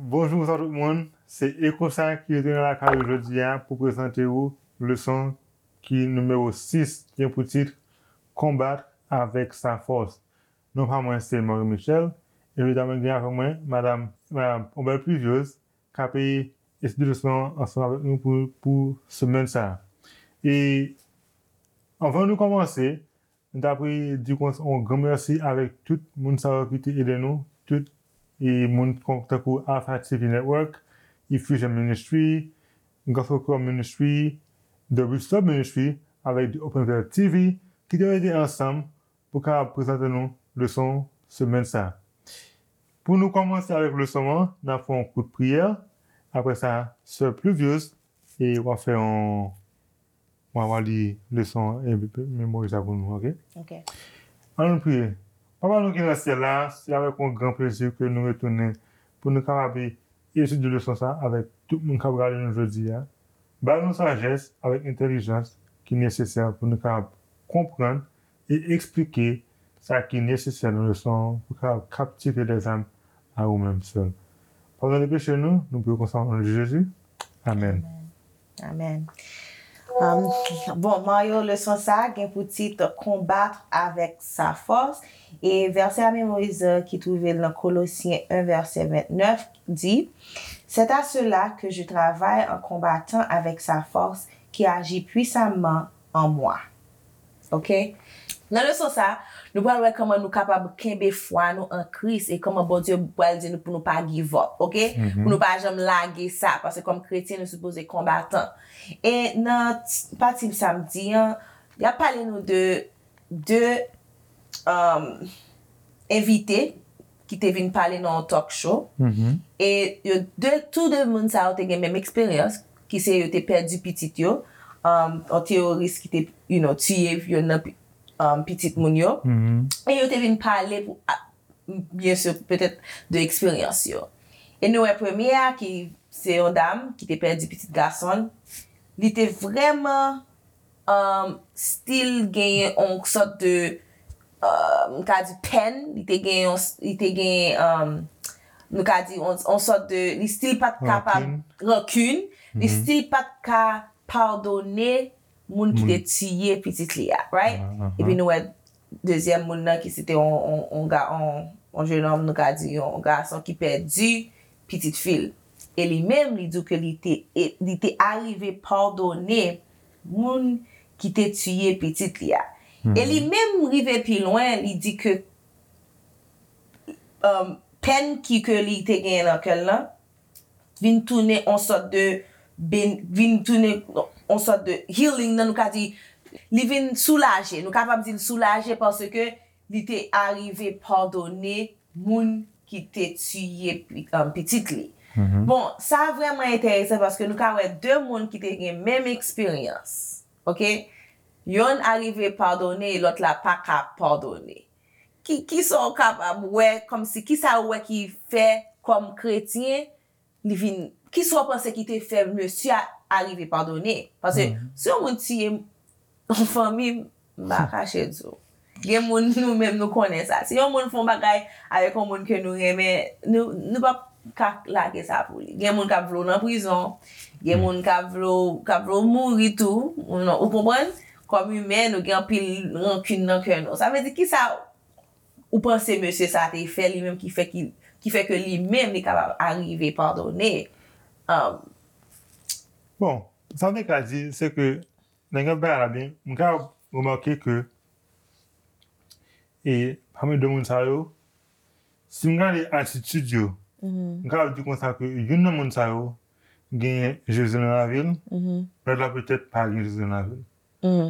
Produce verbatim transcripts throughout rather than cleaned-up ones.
Bonjou, bonswa tout moun. Se Eko sa ki retounen lakay ou jodi a pou prezante ou leson ki nimewo sis, gen pou tit Konbat avèk sa fòs. Non pa mwen se Marie Michel, e jodi a mwen gen avèk mwen madanm, madanm Obel Pluviose, k ap etidye leson an ansanm avèk nou pou, pou semèn sa a. E anvan nou kòmanse, nou ta pre di yon gran mèsi avèk tout moun sa yo ki te ede nou, tout e moun kon- tankou Alpha T V Network, Effusion Ministry, Gospel Choir Ministry, The Restore Ministry, avèk The Open Veil T V, ki te mete ansanm pou kapab prezante nou leson semèn sa a. Pou nou kòmanse avèk leson an, n ap fè yon kout priyè. Apre sa, sè Pluviose, e w ap fè yon, w ap li leson an e memorize sa pou nou, oke? Ok. Ann nou priye. Papa nou ki nan syèl la, se avèk yon gran plezi ke nou retounen pou nou kapab etidye leson sa avèk tout moun k ap gade nou jodi a. Ba nou sajès avèk entèlijans ki nesesè pou nou kapab konprann e eksplike sa ki nesesè nan leson an pou kapab kaptive lèzam a ou menm sèl. Padone peche nou, nou priye konsa o non de Jezi. Amèn. Amèn. Um, bon, Mario, leson sa a gen pou tit Konbat avèk sa fòs. E vèsè a memorize ki twouve l nan Kolosyen en, vèsè vennèf, di, C'est à cela que je travaille en combattant avec sa force qui agit puissamment en moi. Ok? Nan leson sa, nou pral wè kòman nou kapab kenbe fwa nou an Kris e kòman Bondye pral di nou pou nou pa give up, ok? Pou nou pa janm lage sa, paske kòm kretyen, nou sipoze konbatan. E nan pati samdi an, y ap pale nou de de um, envite ki te vin pale nan yon talk show. E yo de, tou de moun sa yo te gen menm eksperyans, ki se yo te pèdi pitit yo, um, yon teworis ki te, you know, tiye youn nan um, pitit moun yo. E yo te vin pale pou, a- byen si, petèt, de eksperyans yo. E nou wè premye a, ki se yon dam ki te pèdi pitit gason l, li te vrèman um, still genyen yon sòt de, um, m ka di pèn, li te genyen yon, li te genyen, um, nou ka di yon, yon sòt de, li still pa t kapab, rankin, li still pa t ka padone moun ki te tiye pitit li a, right? Epi nou wè dezyèm moun nan ki se te yon, yon, yon, ga- yon, yon jenòm, nou ka di yon gason ki pèdi pitit fi l. E li menm, li di ke li te, e- li te arive padone moun ki te tiye pitit li a. E li menm rive pi lwen, li di ke um, pèn ki ke li te genyen nan kè l lan vin tounen yon sòt de ben- vin tounen yon sòt de healing nan, nou ka di li vin soulaje, nou kapab di l soulaje paske li te arive padone moun ki te tiye pi- um, pitit li. Bon, sa vrèman enteresan paske nou ka wè de moun ki te gen menm eksperyans, ok? Yonn arive padone e lòt la pa ka padone. Ki, kisa w kapab wè kòmsi, kisa w wè ki fè kòm kretyen li vin, kisa w panse ki te fè mesye a arive padone? Paske si yon moun tiye yon fanmi, m pa kache di w. Gen moun nou menm nou konnen sa. Si yon moun fè yon bagay avèk yon moun ke nou renmen, nou, nou p ap ka lage sa pou li. Gen moun k ap vle w nan prizon, gen moun k ap vle w, k ap vle w mouri tou, ou non, ou konprann? Kòm imen, nou gen anpil rankin nan kè nou. Sa vle di kisa ou panse mesye sa te fè li menm ki fè ki, ki fè ke li menm li kapab arive padone? Um, Bon, sa m te ka di, se ke, nan gen bagay la byen, m ka remake ke, e, pami de moun sa yo, si m gade atitid yo, m ka di konsa ke youn nan moun sa yo genyen Jezi nan lavi l, lòt la petèt pa gen Jezi nan lavi l.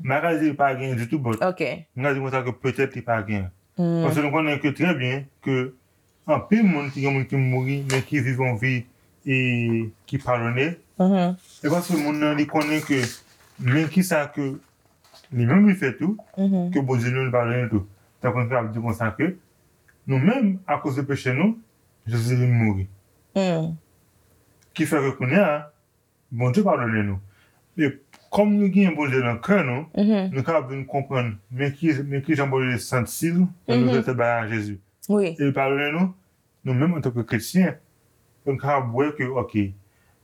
M pa ka di li pa genyen ditou, but ok. M ka di konsa ke petèt li pa genyen. Paske nou konnen ke trè byen ke anpil moun ki gen moun ki mouri, men ki viv yon vi e ki padone. E paske moun nan li konnen ke men kisa ke li menm li fè tou, ke Bondye li menm li padone tou. Tankou nou ka ap di konsa ke nou menm, akoz de peche nou, Jezi vin mouri. Ki fè ke kounye a, Bondye padone nou. E kòm nou gen Bondye nan kè nou, nou kapab vin konprann men ki, men kijan Bondye santi l lè nou fè bagay a Jezi. Wi. E li padone nou, nou menm antanke kretyen, pou n kapab wè ke, ok,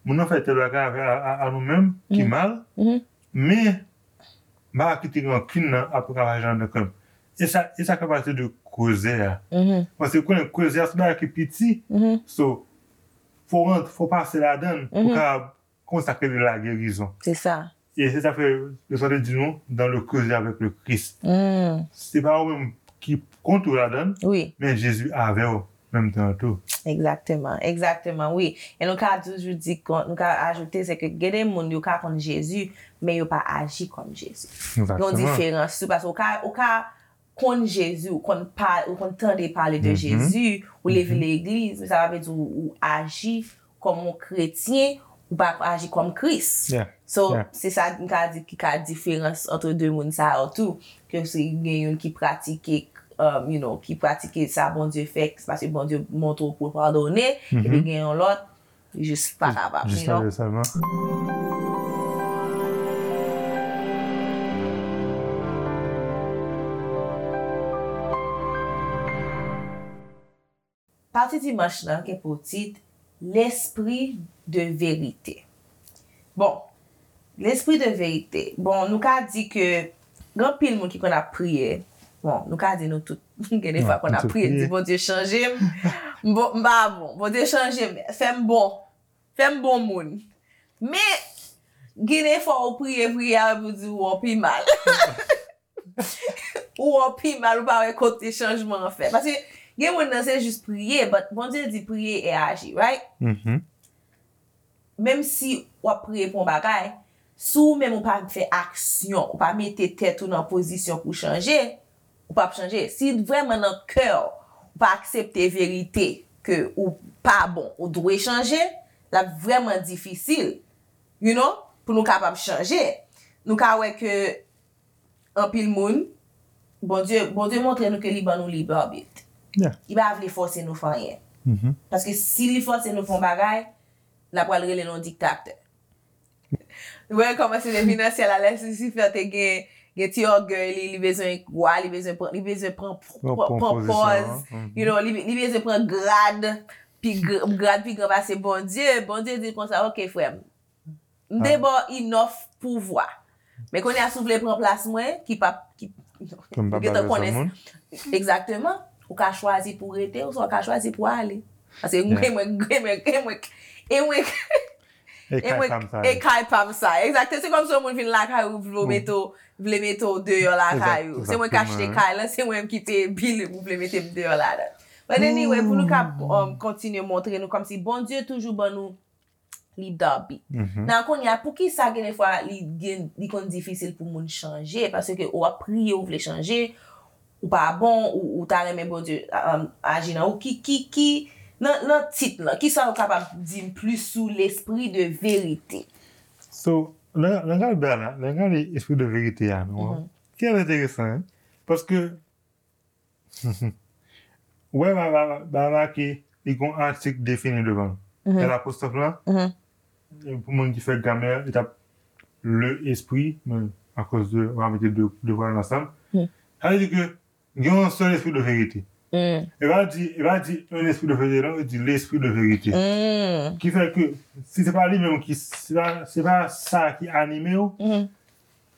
moun nan fè tèl bagay avè a, a, a nou menm ki mal, men m pa ka kite rankin nan ap travay anndan kè m. E sa, e sa fè pati de koze a. Paske konnen koze a se bagay ki piti. So, fò w rant, fò w pase ladan l pou w kapab konsakre li la gerizon. Se sa. E se sa fè Lesann te di nou, dans le creuset avec le Christ. Se pa ou menm ki kont ou ladan l, men Jezi avè w menm tan an tou. Egzakteman, egzakteman, wi. E nou ka toujou di, nou ka ajoute, se ke gen de moun, yo ka konn Jezi, men yo pa aji kòm Jezi. Gen yon diferans tou, paske ou ka, ou ka konn Jezi, ou konn pa, ou konn tande pale de Jezi, ou leve legliz, men sa pa vle di ou, ou aji kòm yon kretyen, ou pa aji kòm Kris. So, se sa m ka di ki ka diferans ant de moun sa yo tou, ke si gen youn ki pratike, um, you know, ki pratike sa Bondye fè, se paske Bondye montre w pou w padone, epi gen yon lòt, li jis pa kapab, you know. Pati dimanch lan gen pou tit L'esprit de vérité. Bon, l'esprit de vérité. Bon, nou ka di ke gen anpil moun ki konn ap priye. Bon, nou ka di nou tout gen de fwa konn ap priye, di Bondye chanje m. M pa bon, Bondye chanje m, fè m bon, fè m bon moun. Men, gen de fwa ou priye, priye, apre pou di ou pi mal. Ou wè w pi mal, ou pa wè kote chanjman an fèt. Paske gen moun nan se jis priye, but Bondye di priye e aji, right? Menm si w ap priye pou yon bagay, si ou menm ou pa fè aksyon, ou pa mete tèt ou nan pozisyon pou w chanje, ou p ap chanje. Si vrèman nan kè w, ou pa aksepte verite ke ou pa bon, ou dwe chanje, l ap vrèman difisil, you know, pou nou kapab chanje. Nou ka wè ke anpil moun, Bondye, Bondye montre nou ke li ban nou lib abit. Li pa vle fòse nou fè anyen. Paske si li fòse nou fè yon bagay, l ap pral rele nou diktatè. Ou wè kòman se depi nan syèl la, lè Lisifè te gen, gen ti ògèy li, li bezwen wa, li bezwen pran, li bezwen pran, pran pòz, you know, li, li bezwen pran grad, pi, grad pi gran pase Bondye. Bondye di konsa, ok, frè m, m te ba w inòf pouvwa. Men kounye a, si w vle pran plas mwen, ki p ap, ki, ou gentan konnen. Egzakteman. Ou ka chwazi pou w rete, oswa w ka chwazi pou w ale. Paske mwen, mwen, mwen, mwen, e mwen, e mwen, e kay pa m sa. Egzakte, se kòmsi yon moun vin lakay ou, vle mete w, vle mete w deyò lakay ou. Se mwen k achte kay lan, se mwen ki peye bil ou vle mete m deyò ladan. But anyway, pou nou ka, um, kontinye montre nou kòmsi Bondye toujou ban nou lib abit. Nan kounye a, poukisa gen de fwa li gen, li konn difisil pou moun chanje? Paske ou ap priye, ou vle chanje, ou pa bon, ou, ou ta renmen Bondye, um, aji nan ou. Ki, ki, ki, nan, nan tit lan, kisa ou kapab di m plis sou l'esprit de vérité? So, nan, nan gade la, nan gade espri de verite a, nou, ki enteresan, hein? Paske Ou wè, ba, ba, ba make, li gon atik defini devan l. L apostwòf lan, pou moun ki fè gramè, li t ap le espri, men akoz de, w a mete de, de vwal ansanm. Sa vle di ke gen yon sèl espri de verite. E pa di, e pa di un esprit de vérité, non, li di l'esprit de vérité. Ki fè ke, si se pa li menm ki, se pa, se pa sa ki anime w,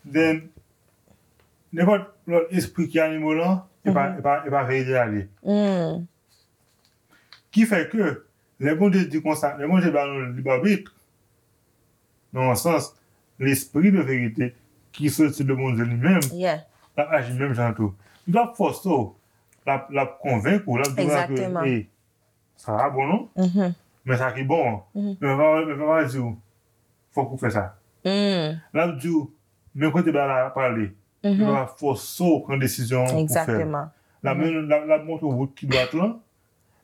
then, nenpòt lòt espri ki anime w lan, e pa, e pa, e pa verite a li ye. Ki fè ke, lè Bondye di konsa, lè Bondye ba nou lib abit, nan yon sans, lespri de verite ki soti de Bondye li menm, l ap aji menm jan tou. Li p ap fòse w, l ap, l ap konvenk ou, l ap di w ke, e, sa pa bon non, men sa ki bon an. Men pa, men pa di w, fòk ou fè sa. L ap di w, men kote bagay la prale. Men pa fòse w pran desizyon an pou fè l. L ap mennen, l ap, l ap montre w wout ki dwat lan.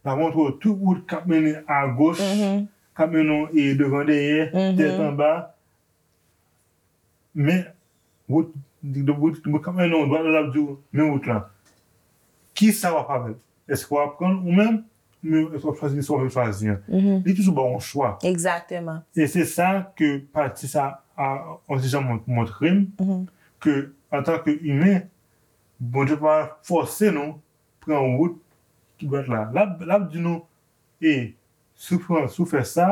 L ap montre w tout wout k ap mennen agoch, k ap mennen w, e, devan dèyè, tèt anba. Men, wout, wout, wout k ap mennen w dwat la, l ap di w, men wout lan. Kisa w ap avè l? Èske w ap pran l ou menm? Men èske w ap chwazi li, èske w ap chwazi an? Li toujou ba w yon chwa. Egzakteman. E se sa ke pati sa a, yon ti jan mont-, montre m, ke antanke imen, Bondye pa fòse nou pran wout ki dwat la. L ap, l ap di nou, e, Si w pran, si w fè sa,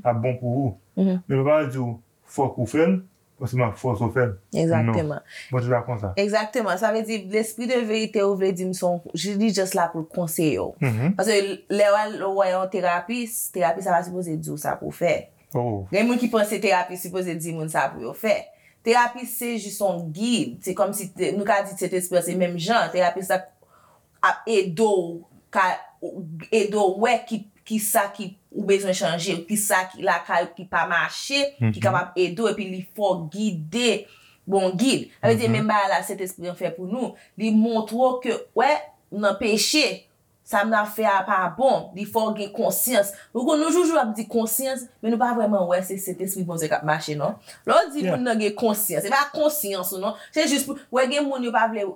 ap bon pou ou. Men pa di w fòk ou fè l, paske m ap fòse w fè l. Non. Egzakteman. Bondye pa konsa. Egzakteman. Sa vle di, lespri de verite ou vle di m se yon, li just la pou l konseye w. Paske lè w al wè yon terapis, terapis la pa sipoze di w sa pou w fè. Oh. Gen moun ki panse terapis sipoze di moun sa pou yo fè. Terapis se jis yon gid. Se kòmsi te- nou ka di Sentespri an se menm jan. Terapis la ap ede w ka ede w wè ki ki sa ki ou bezwen chanje, ki sa ki lakay ou ki pa mache, ki kapab ede w epi li fè w gide bon gid. Sa vle di menm bagay la Sentespri an fè pou nou. Li montre w ke wè nan peche, sa m ap fè a pa bon, li fè w gen konsyans. Nou konn nou toujou ap di konsyans, men nou pa vrèman wè se Sentespri Bondye k ap mache non. Lè w di moun nan gen konsyans, se pa konsyans ou non, se jis pou wè gen moun yo pa vle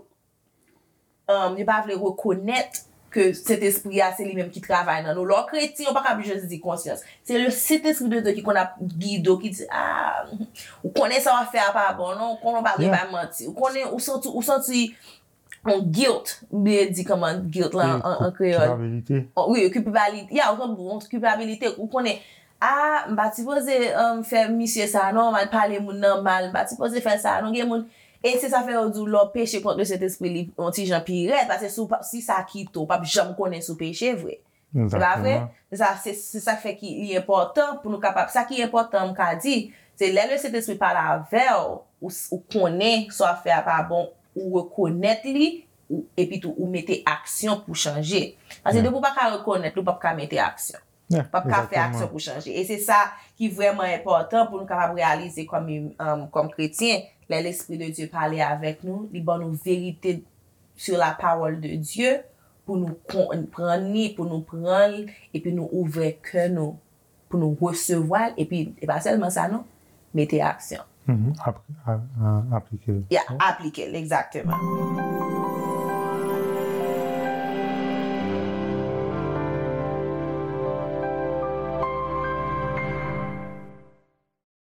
um, yo pa vle rekonèt ke Sentespri a se li menm ki travay nan nou. Lè w kretyen, ou pa kab jis di konsyans. Se le Sentespri de Dye ki konn ap gide w, ki di, ah, ou konnen sa w ap fè a pa bon non, ou konnen w pa dwe bay manti. Ou konnen, ou santi, ou santi yon guilt, m bliye di kòman guilt lan an, an kreyòl. Kilpabilite. Oh, wi, kilpabilite. Ya, ou santi yon kilpabilite. Ou konnen, ah, m pa t sipoze um, fè misye sa non, m al pale moun nan mal, m pa t sipoze fè sa non. Gen moun, e se sa fè yo di w lè w peche kont le Sentespri li yon ti jan pi rèd, paske si w pa- si sa kite w, w p ap janm konnen si w peche vre. Se pa vre? Se sa, se se sa k fè ki li enpòtan pou nou kapab, sa ki enpòtan m ka di, se lè le Sentespri pale avè w, ou, s- ou konnen sa w ap fè a pa bon, ou rekonèt li, ou, epi tou ou mete aksyon pou chanje. Paske depi w pa ka rekonèt li, ou p ap ka mete aksyon. P ap ka fè aksyon pou chanje. E se sa ki vrèman enpòtan pou nou kapab reyalize kòm, um, kòm kretyen. Lè Lespri de Dye pale avèk nou, li ban nou verite sur la parole de Dieu pou nou konprann li, pou nou pran l, epi nou ouvè kè nou pou nou resevwa l, epi e pa sèlman sa non, mete aksyon. Mhm. Ap- a- a- Aplike l. Ya, aplike l, egzakteman.